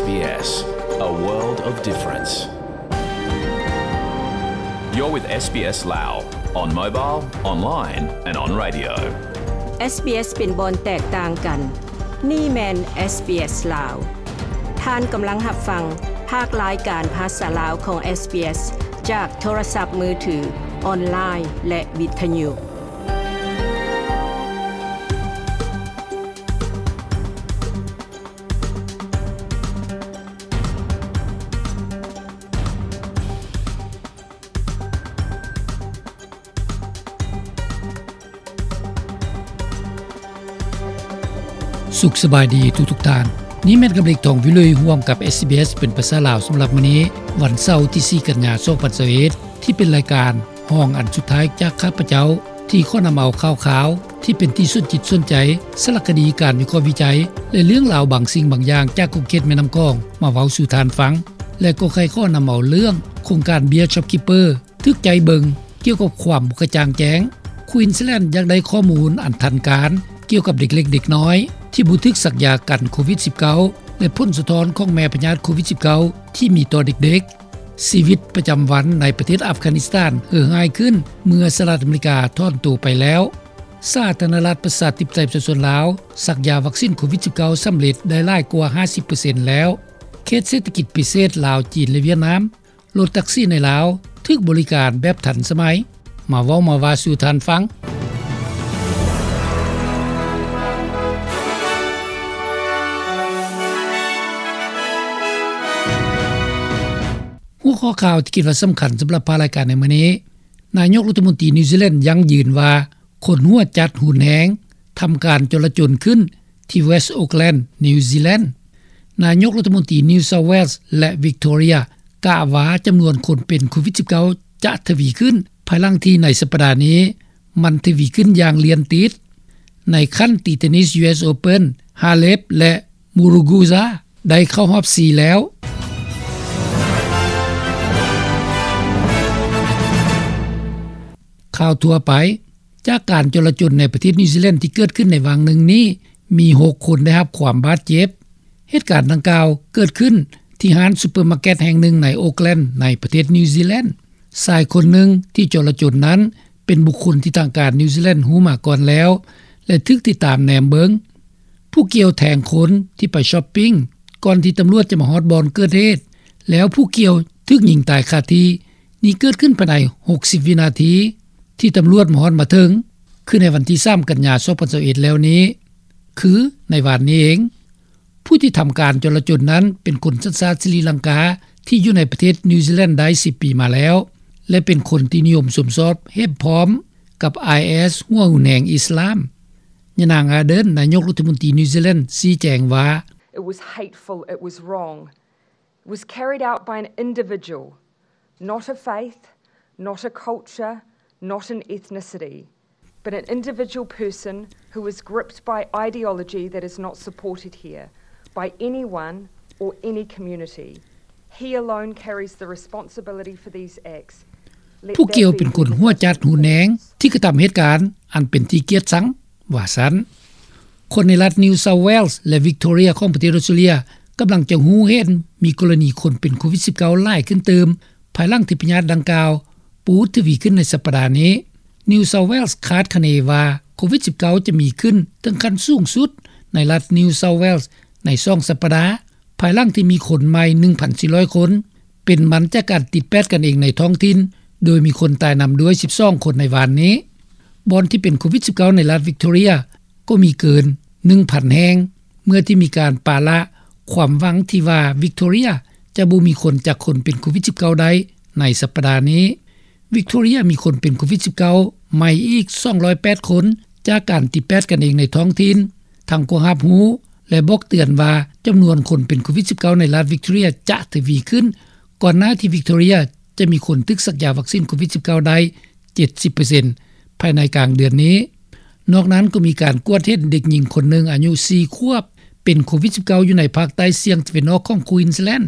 S B S, a world of difference. You're with S B S Lao on mobile, online and on radio. SBS ເປັນບ່ອນແຕກຕ່າງກັນ. ນີ້ແມ່ນ SBS ລາວ. ທ່ານກຳລັງຮັບຟັງພາກລາຍການພາສາລາວຂອງ SBS ຈາກໂທລະສັບມືຖື, ອອນລາຍ ແລະ ວິທະຍຸ. ສຸກສະບາຍດີທຸກໆທ່ານ. ນີ້ແມ່ນກຳເລັກ ທອງວິລຸຍ ຮ່ວມກັບ SBS ເປັນພາສາລາວສຳລັບມື້ນີ້, ວັນເສົາທີສີ່ ກັນຍາ ສອງພັນຊາວເອັດ ທີ່ເປັນລາຍການ ຫ້ອງອັນສຸດທ້າຍຈາກຂ້າພະເຈົ້າ ທີ່ຂໍນຳເອົາຂ່າວຄາວທີ່ເປັນທີ່ສົນຈິດສົນໃຈ, ສາລະຄະດີ, ການວິເຄາະວິໄຈ ແລະ ເລື່ອງລາວບາງສິ່ງບາງຢ່າງຈາກຂົງເຂດແມ່ນ້ຳຂອງມາເວົ້າສູ່ທ່ານຟັງ ແລະ ກໍໃຄ່ຂໍນຳເອົາເລື່ອງໂຄງການເບ້ຍ ShopKeeper ຖືກໃຈເບິ່ງ ກ່ຽວກັບຄວາມບໍ່ກະຈ່າງແຈ້ງ. ຄວີນສແລນຢາກໄດ້ຂໍ້ມູນອັນທັນການກ່ຽວກັບເດັກເລັກເດັກນ້ອຍທີ່ບໍ່ຖືກສັກຢາກັນໂຄວິດສິບເກົ້າ ແລະ ຜົນສະທ້ອນຂອງແມ່ພະຍາດໂຄວິດສິບເກົ້າທີ່ມີຕໍ່ເດັກໆ. ຊີວິດປະຈຳວັນໃນປະເທດອັຟການິສຖານເຫີຮ້າຍຂຶ້ນເມື່ອສະຫະລັດອາເມລິກາຖອນໂຕໄປແລ້ວ. ສາທາລະນະລັດປະຊາທິປະໄຕປະຊາຊົນລາວ ສັກຢາວັກຊີນໂຄວິດສິບເກົ້າສຳເລັດໄດ້ຫຼາຍກວ່າຫ້າສິບເປີເຊັນແລ້ວ. ເຂດເສດຖະກິດພິເສດລາວ, ຈີນ ແລະ ຫວຽດນາມ, ລົດແທັກຊີໃນລາວຖືກບໍລິການແບບທັນສະໄໝ. ມາເວົ້າມາວ່າສູ່ທ່ານຟັງ. ຫົວຂໍ້ຂ່າວທີ່ຄິດວ່າສຳຄັນສຳລັບພາກລາຍການໃນມື້ນີ້, ນາຍົກລັດຖະມົນຕີນິວຊີແລນຢັ້ງຢືນວ່າ ຄົນຫົວຈັດຮຸນແຮງທຳການຈໍລະຈົນຂຶ້ນທີ່ West Auckland, New Zealand. ນາຍົກລັດຖະມົນຕີ New South Wales ແລະ Victoria ກະວ່າຈຳນວນຄົນເປັນໂຄວິດສິບເກົ້າຈະທະວີຂຶ້ນ ພາຍຫຼັງທີ່ໃນສັບປະດານີ້ ມັນທະວີຂຶ້ນຢ່າງລຽນຕິດ. ໃນຂັ້ນຕີເທນນິສ US Open, Halep ແລະ Muguruza ໄດ້ເຂົ້າຮອບສີ່ແລ້ວ. ຂ່າວທົ່ວໄປ. ຈາກການຈໍລະຈົນໃນປະເທດນິວຊີແລນທີ່ເກີດຂຶ້ນໃນຫວ່າງໜຶ່ງນີ້, ມີຫົກຄົນໄດ້ຮັບຄວາມບາດເຈັບ. ເຫດການດັ່ງກ່າວເກີດຂຶ້ນທີ່ຮ້ານຊຸບເປີມາເກັດແຫ່ງໜຶ່ງໃນໂອກແລນ ໃນປະເທດນິວຊີແລນ. ຊາຍຄົນໜຶ່ງທີ່ຈໍລະຈົນນັ້ນ ເປັນບຸກຄົນທີ່ທາງການນິວຊີແລນຮູ້ມາກ່ອນແລ້ວ ແລະ ຖືກຕິດຕາມແນມເບິ່ງ. ຜູ້ກ່ຽວແທງຄົນທີ່ໄປຊັອບປິງ ກ່ອນທີ່ຕຳຫຼວດຈະມາຮອດບ່ອນເກີດເຫດ, ແລ້ວຜູ້ກ່ຽວຖືກຍິງຕາຍຄາທີ່. ນີ້ເກີດຂຶ້ນພາຍໃນຫົກສິບວິນາທີທີ່ຕຳຫຼວດມາຮອດມາເຖິງ, ຄືໃນວັນທີສາມ ກັນຍາ ສອງພັນຊາວເອັດ ແລ້ວນີ້, ຄືໃນວານນີ້ເອງ. ຜູ້ທີ່ທຳການຈໍລະຈົນນັ້ນເປັນຄົນສັນຊາດສະຣີລັງກາ ທີ່ຢູ່ໃນປະເທດນິວຊີແລນໄດ້ສິບປີມາແລ້ວ ແລະ ເປັນຄົນທີ່ນິຍົມຊົມຊອບເຫັນພ້ອມກັບໄອເອສ ຫົວຮຸນແຮງອິດສະລາມ. ຍານາງ Ardern, ນາຍົກລັດຖະມົນຕີນິວຊີແລນ ຊີ້ແຈງວ່າ, It was hateful, it was wrong. It was carried out by an individual, not a faith, not a culture, not an ethnicity, but an individual person who was gripped by ideology that is not supported here by anyone or any community. He alone carries the responsibility for these acts. ຜູ້ກ່ຽວເປັນຄົນຫົວຈັດຮຸນແຮງທີ່ກະທຳເຫດການອັນເປັນທີ່ກຽດຊັງ, ວ່າຊັ້ນ. ຄົນໃນລັດ New South Wales ແລະ Victoria ຂອງປະເທດອອສເຕຣເລັຽ ກຳລັງຈະຮູ້ເຫັນມີກໍລະນີຄົນເປັນໂຄວິດສິບເກົ້າຫຼາຍຂຶ້ນຕື່ມ ພາຍຫຼັງທີ່ພະຍາດດັ່ງກ່າວປູດທະວີຂຶ້ນໃນສັບປະດານີ້. New South Wales ຄາດຄະເນວ່າໂຄວິດສິບເກົ້າຈະມີຂຶ້ນເຖິງຂັ້ນສູງສຸດໃນລັດ New South Wales ໃນສອງສັບປະດາ, ພາຍຫຼັງທີ່ມີຄົນໃໝ່ໜຶ່ງພັນສີ່ຮ້ອຍຄົນ ເປັນມັນຈາກການຕິດແປດກັນເອງໃນທ້ອງຖິ່ນ, ໂດຍມີຄົນຕາຍນຳດ້ວຍສິບສອງຄົນໃນວານນີ້. ບ່ອນທີ່ເປັນໂຄວິດສິບເກົ້າໃນລັດ Victoria ກໍມີເກີນໜຶ່ງພັນແຫ່ງ, ເມື່ອທີ່ມີການປະລະຄວາມຫວັງທີ່ວ່າ Victoria ຈະບໍ່ມີຄົນຈັກຄົນເປັນໂຄວິດສິບເກົ້າໄດ້ໃນສັບປະດານີ້. Victoria ມີຄົນເປັນໂຄວິດສິບເກົ້າໃໝ່ອີກສອງຮ້ອຍແປດຄົນ ຈາກການຕິດແປດກັນເອງໃນທ້ອງຖິ່ນ, ທັງກໍຮັບຮູ້ ແລະ ບອກເຕືອນວ່າຈຳນວນຄົນເປັນໂຄວິດສິບເກົ້າໃນລັດ Victoria ຈະທະວີຂຶ້ນ, ກ່ອນໜ້າທີ່ Victoria ຈະມີຄົນຖືກສັກຢາວັກຊີນໂຄວິດສິບເກົ້າໄດ້ເຈັດສິບເປີເຊັນ ພາຍໃນກາງເດືອນນີ້. ນອກນັ້ນກໍມີການກວດເຫັນເດັກຍິງຄົນໜຶ່ງອາຍຸສີ່ຂວບ ເປັນໂຄວິດສິບເກົ້າຢູ່ໃນພາກໃຕ້ສ່ຽງຕາເວັນອອກຂອງ Queensland.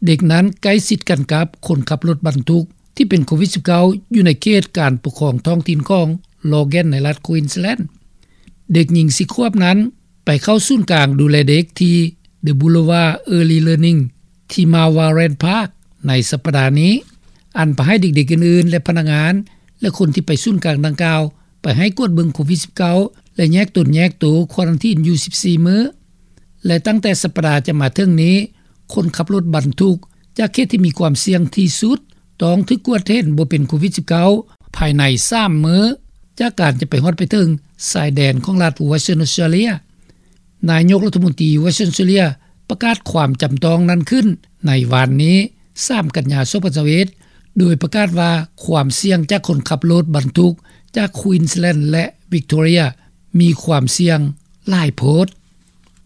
ເດັກນັ້ນໃກ້ຊິດກັນກັບຄົນຂັບລົດບັນທຸກ ທີ່ເປັນໂຄວິດສິບເກົ້າ ຢູ່ໃນເຂດການປົກຄອງທ້ອງຖິ່ນຂອງ Logan ໃນລັດ Queensland. ເດັກຍິງສີ່ຂວບນັ້ນໄປເຂົ້າສູນກາງດູແລເດັກທີ່ The Boulevard Early Learning ທີ່ Marlwarren Park ໃນສັບປະດານີ້, ອັນພາໃຫ້ເດັກໆອື່ນໆ ແລະ ພະນັກງານ ແລະ ຄົນທີ່ໄປສູນກາງດັ່ງກ່າວ ໄປໃຫ້ກວດເບິ່ງໂຄວິດ-19 ແລະ ແຍກຕົນແຍກໂຕ ຄວາຣັນທີນຢູ່ ສິບສີ່ ມື້. ແລະ ຕັ້ງແຕ່ສັບປະດາຈະມາເຖິງນີ້, ຄົນຂັບລົດບັນທຸກຈາກເຂດທີ່ມີຄວາມສ່ຽງທີ່ສຸດ ຕ້ອງຖືກກວດເຫັນບໍ່ເປັນໂຄວິດ-19 ພາຍໃນ ສາມ ມື້ ຈາກການຈະໄປຮອດໄປເຖິງຊາຍແດນຂອງລັດ Western Australia. ນາຍົກລັດຖະມົນຕີ Western Australia ປະກາດຄວາມຈຳຕ້ອງນັ້ນຂຶ້ນໃນວານນີ້ ສາມ ກັນຍາ ສອງພັນຊາວເອັດ ໂດຍປະກາດວ່າຄວາມສ່ຽງຈາກຄົນຂັບລົດບັນທຸກຈາກ Queensland ແລະ Victoria ມີຄວາມສ່ຽງຫຼາຍໂພດ.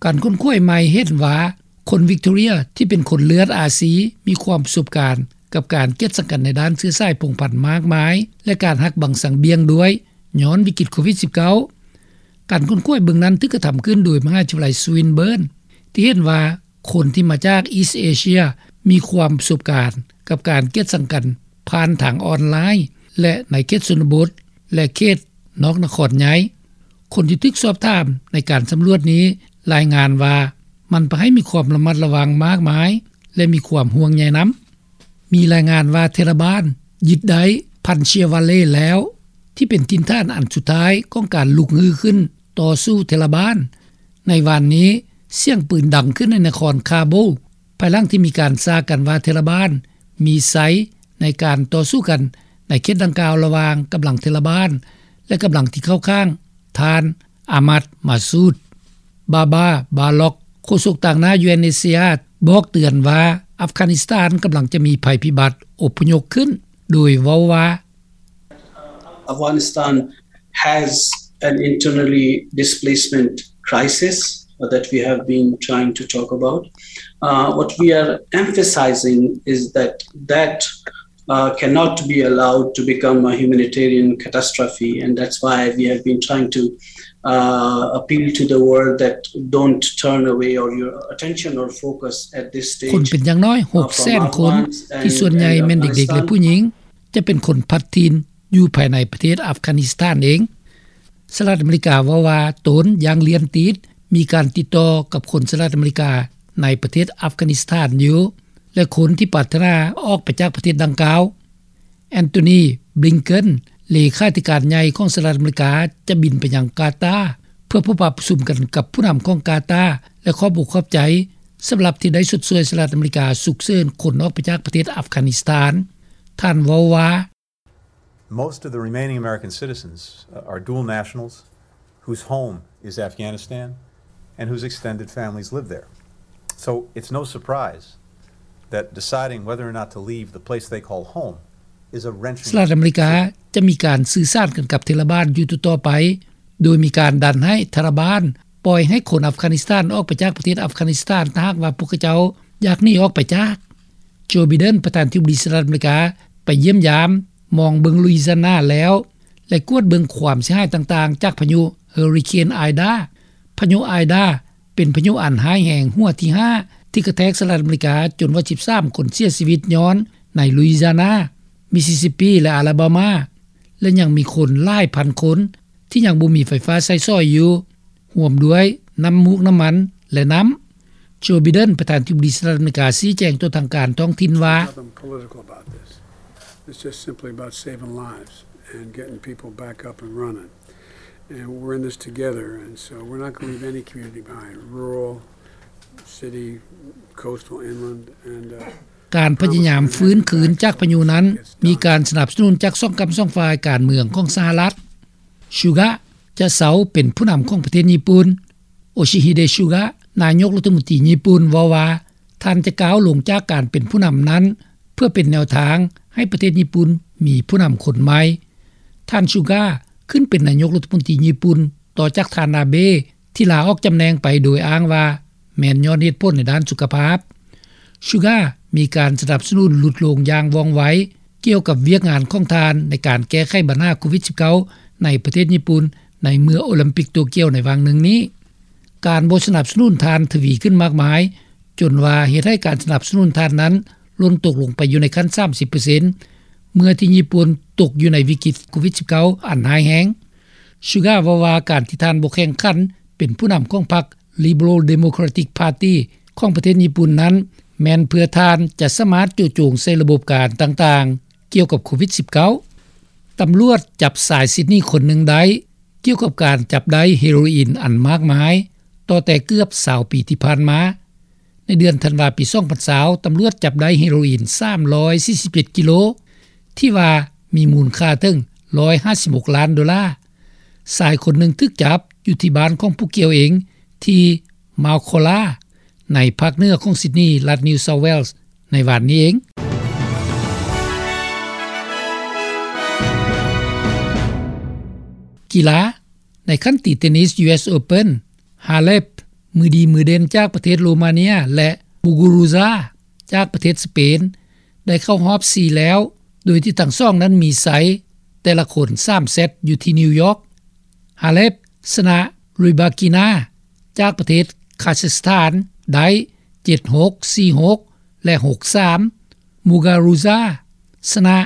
ການຄົ້ນຄວ້າໃໝ່ເຫັນວ່າ ຄົນ Victoria ທີ່ເປັນຄົນເລືອດອາຊີ ມີຄວາມປະສົບການກັບການກຽດສັງກັນໃນດ້ານເຊື້ອສາຍພົງພັນມາກມາຍ ແລະ ການຫັກບັງສັງບ່ຽງດ້ວຍ ຍ້ອນວິກິດໂຄວິດ-19. ການຄົ້ນຄວ້າເບື້ອງນັ້ນຖືກກະທຳຂຶ້ນໂດຍມະຫາວິທະຍາໄລ Swinburne ທີ່ເຫັນວ່າຄົນທີ່ມາຈາກ East Asia ມີຄວາມປະສົບການກັບການກຽດສັງກັນຜ່ານທາງອອນລາຍ ແລະ ໃນເຂດຊົນນະບົດ ແລະ ເຂດນອກນະຄອນໃຫຍ່. ຄົນທີ່ຖືກສອບຖາມໃນການສຳຫຼວດນີ້ລາຍງານວ່າ ມັນພາໃຫ້ມີຄວາມລະມັດລະວັງມາກມາຍ ແລະ ມີຄວາມຫ່ວງໃຍນຳ. ມີລາຍງານວ່າເທລະບານຍຶດໄດ້ Panchshir Valley ແລ້ວ ທີ່ເປັນຖິ່ນຖານອັນສຸດທ້າຍຂອງການລຸກຮືຂຶ້ນຕໍ່ສູ້ເທລະບານ. ໃນວານນີ້, ສຽງປືນດັງຂຶ້ນໃນນະຄອນ Kabul ພາຍຫຼັງທີ່ມີການສາກັນວ່າເທລະບານມີໄຊໃນການຕໍ່ສູ້ກັນໃນເຂດດັ່ງກ່າວລະຫວ່າງກຳລັງເທລະບານ ແລະ ກຳລັງທີ່ເຂົ້າຂ້າງທ່ານ Ahmad Massoud. Baba Balok ໂຄສົກຕາງໜ້າ UNHCR ບອກເຕືອນວ່າ ອັຟການິສຖານກຳລັງຈະມີໄພພິບັດອົບພະຍົບຂຶ້ນ ໂດຍເວົ້າວ່າ Afghanistan has an internally displacement crisis that we have been trying to talk about. Uh, what we are emphasizing is that that uh, cannot be allowed to become a humanitarian catastrophe, and that's why we have been trying to uh, appeal to the world that don't turn away or your attention or focus at this stage. ຄົນເປັນຢ່າງນ້ອຍ ຫົກແສນ ຄົນ ທີ່ສ່ວນໃຫຍ່ແມ່ນເດັກໆ ແລະ ຜູ້ຍິງ ຈະເປັນຄົນພັດຖິ່ນຢູ່ພາຍໃນປະເທດອັຟການິສຖານເອງ. ສະຫະລັດອາເມລິກາເວົ້າວ່າ ຕົນຢ່າງລຽນຕິດ ມີການຕິດຕໍ່ກັບຄົນສະຫະລັດອາເມລິກາໃນປະເທດອັຟການິສຖານຢູ່ ແລະ ຄົນທີ່ປາດຖະໜາອອກໄປຈາກປະເທດດັ່ງກ່າວ. Antony Blinken ເລຂາທິການໃຫຍ່ຂອງສະຫະລັດອາເມລິກາ ຈະບິນໄປຍັງກາຕາ ເພື່ອພົບປະປະຊຸມກັນກັບຜູ້ນຳຂອງກາຕາ ແລະ ຂອບອົກຂອບໃຈສຳລັບທີ່ໄດ້ຊົດຊ່ວຍສະຫະລັດອາເມລິກາສຸກເສີນຄົນອອກໄປຈາກປະເທດອັຟການິສຖານ. ທ່ານເວົ້າວ່າ Most of the remaining American citizens, uh, are dual nationals whose home is Afghanistan and whose extended families live there. So it's no surprise that deciding whether or not to leave the place they call home is a wrenching ສະຫະລັດອາເມລິກາຈະມີການສື່ສານກັນກັບເທລະບານຢູ່ຕໍ່ໆໄປ ໂດຍມີການດັນໃຫ້ທາລະບານປ່ອຍໃຫ້ຄົນອັຟການິສຖານອອກໄປຈາກປະເທດອັຟການິສຖານ ຖ້າຫາກວ່າພວກເຂົາເຈົ້າຢາກໜີອອກໄປຈາກ. ໂຈ ໄບເດັນ ປະທານທິບໍດີສະຫະລັດອາເມລິກາ ໄປຢ້ຽມຢາມມອງເບິ່ງລຸຍຊີນາແລ້ວ ແລະ ກວດເບິ່ງຄວາມເສຍຫາຍຕ່າງໆ ຈາກພາຍຸເຮີຣິເຄນ ໄອດາ. ພາຍຸໄອດາ ເປັນພາຍຸອັນຮ້າຍແຮງຫົວທີຫ້າ ທີ່ກະແທກສະຫະລັດອາເມລິກາ ຈົນວ່າສິບສາມຄົນເສຍຊີວິດຍ້ອນໃນລຸຍຊີນາ, ມິສຊິສຊິບປີ ແລະ ອາລາບາມາ ແລະ ຍັງມີຄົນຫຼາຍພັນຄົນທີ່ຍັງບໍ່ມີໄຟຟ້າໃຊ້ສອຍຢູ່ ຮ່ວມດ້ວຍນ້ຳມູກນ້ຳມັນ ແລະ ນ້ຳ. ໂຈ ໄບເດັນ ປະທານທິບໍດີສະຫະລັດອາເມລິກາ ຊີ້ແຈງຕໍ່ທາງການທ້ອງຖິ່ນວ່າ Nothing political about this. It's just simply about saving lives and getting people back up and running. And we're in this together, and so we're not gonna leave any community behind, rural, city, coastal, inland, and, uh, ການພະຍາຍາມຟື້ນຄືນຈາກພາຍຸນັ້ນ ມີການສະໜັບສະໜູນຈາກສອງກ້ຳສອງຝ່າຍການເມືອງຂອງສະຫະລັດ. ຊູກະ ຈະເຊົາເປັນຜູ້ນຳຂອງປະເທດຍີ່ປຸ່ນ. ໂອຊິຮິເດ ຊູກະ ນາຍົກລັດຖະມົນຕີຍີ່ປຸ່ນ ເວົ້າວ່າ ທ່ານຈະກ້າວລົງຈາກການເປັນຜູ້ນຳນັ້ນ ເພື່ອເປັນແນວທາງໃຫ້ປະເທດຍີ່ປຸ່ນມີຜູ້ນຳຄົນໃໝ່. ທ່ານ ຊູກະ ຂຶ້ນເປັນນາຍົກລັດຖະມົນຕີຍີ່ປຸ່ນ ຕໍ່ຈາກທ່ານ ອາເບ ທີ່ລາອອກຈຳແໜ່ງໄປໂດຍອ້າງວ່າ ແມ່ນຍ້ອນເຫດຜົນໃນດ້ານສຸຂະພາບ. ຊູກະ ມີການສະໜັບສະໜູນຫຼຸດລົງຢ່າງວ່ອງໄວ ກ່ຽວກັບວຽກງານຂອງທ່ານໃນການແກ້ໄຂບັນຫາໂຄວິດ-19 ໃນປະເທດຍີ່ປຸ່ນ ໃນເມື່ອໂອລິມປິກໂຕກຽວໃນຫວ່າງໜຶ່ງນີ້. ການບໍ່ສະໜັບສະໜູນທ່ານທະວີຂຶ້ນມາກມາຍ ຈົນວ່າເຮັດໃຫ້ການສະໜັບສະໜູນທ່ານນັ້ນຫຼົ່ນຕົກລົງໄປຢູ່ໃນຂັ້ນ ສາມສິບເປີເຊັນ ເມື່ອທີ່ຍີ່ປຸ່ນຕົກຢູ່ໃນວິກິດໂຄວິດ-19 ອັນຮ້າຍແຮງ. ຊູກະ ເວົ້າວ່າ ການທີ່ທ່ານບໍ່ແຂ່ງຂັນເປັນຜູ້ນຳຂອງພັກ Liberal Democratic Party ຂອງປະເທດຍີ່ປຸ່ນນັ້ນ ແມ່ນເພື່ອທ່ານຈະສາມາດໂຈະໂຈງໃສ່ລະບົບການຕ່າງໆ ກ່ຽວກັບໂຄວິດ-19. ຕຳຫຼວດຈັບຊາຍຊິດນີຄົນໜຶ່ງໄດ້ ກ່ຽວກັບການຈັບໄດ້ເຮໂຣອິນອັນມາກມາຍ ຕໍ່ແຕ່ເກືອບຊາວປີທີ່ຜ່ານມາ. ໃນເດືອນທັນວາປີສອງພັນຊາວ ຕຳຫຼວດຈັບໄດ້ເຮໂຣອິນສາມຮ້ອຍສີ່ສິບເຈັດກິໂລ ທີ່ວ່າມີມູນຄ່າເຖິງຮ້ອຍຫ້າສິບຫົກລ້ານໂດລາ. ຊາຍຄົນໜຶ່ງຖືກຈັບຢູ່ທີ່ບ້ານຂອງຜູ້ກ່ຽວເອງ ທີ່ມາວຄໍລາ ໃນພາກເໜືອຂອງຊິດນີ ລັດນິວເຊົາແວລ ໃນວານນີ້ເອງ. ກິລາ. ໃນຂັ້ນຕີເທນນິສ ຢູເອສ ໂອເພິນ ຮາເລັບ ມືດີມືເດັ່ນຈາກປະເທດໂຣມາເນຍ ແລະ ມູກູຣູຊາ ຈາກປະເທດສະເປນ ໄດ້ເຂົ້າຮອບສີ່ແລ້ວ ໂດຍທີ່ທັງສອງນັ້ນມີໄຊແຕ່ລະຄົນສາມເຊັດຢູ່ທີ່ນິວຢອກ. ຮາເລັບ ຊະນະ ຣີບາກີນາ ຈາກປະເທດຄາຊາສຖານ ໄດ້ເຈັດຫົກ ສີ່ຫົກ ແລະ ຫົກສາມ. ມູກາຣູຊາ ຊະນະ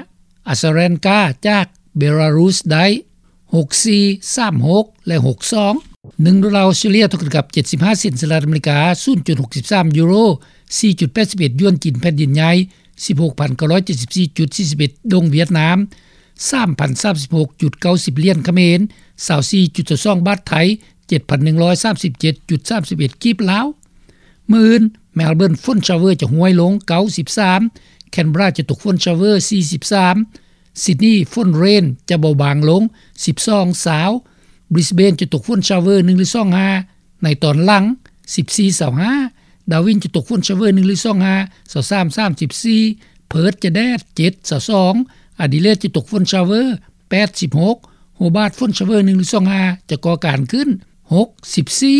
ອາຊາແຣນກາ ຈາກເບລາຣຸສ ໄດ້ຫົກສີ່ ສາມຫົກ ແລະ ຫົກສອງ. ໜຶ່ງໂດລາອອສເຕຣເລັຽ ເທົ່າກັບເຈັດສິບຫ້າເຊັນສະຫະລັດອາເມລິກາ, ສູນຈຸດຫົກສິບສາມຢູໂຣ, ສີ່ຈຸດແປດສິບເອັດຢວນຈີນແຜ່ນດິນໃຫຍ່, ສິບຫົກພັນເກົ້າຮ້ອຍເຈັດສິບສີ່ຈຸດສີ່ສິບເອັດດົງຫວຽດນາມ, ສາມພັນສາມສິບຫົກຈຸດເກົ້າສິບຫຼຽນຂະເໝນ, ຊາວສີ່ຈຸດຊາວສອງບາດໄທ, ເຈັດພັນໜຶ່ງຮ້ອຍສາມສິບເຈັດຈຸດສາມສິບເອັດກີບລາວ. ມື້ອື່ນ ເມລເບີນ ຝົນຊາວເວີຈະຫ້ວຍລົງ ເກົ້າສິບສາມ, ແຄນເບຣາຈະຕົກຝົນຊາວເວີ ສີ່ສິບສາມ, ຊິດນີ ຝົນເຣນຈະເບົາບາງລົງ ສິບສອງ ຊາວ, ບຣິສເບນຈະຕົກຝົນຊາວເວີ ໜຶ່ງ ຫຼື ສອງ ຫ້າ ໃນຕອນຫຼັງ ສິບສີ່ ຊາວຫ້າ, ດາວິນຈະຕົກຝົນຊາວເວີ ໜຶ່ງ ຫຼື ສອງ ຫ້າ ຊາວສາມ ສາມສິບສີ່, ເພີດຈະແດດ ເຈັດ ຊາວສອງ, ອາດີເລດຈະຕົກຝົນຊາວເວີ ແປດສິບຫົກ, ໂຮບາດ ຝົນຊາວເວີ ໜຶ່ງ ຫຼື ສອງ ຫ້າ ຈະກໍ່ການຂຶ້ນ ຫົກສິບສີ່.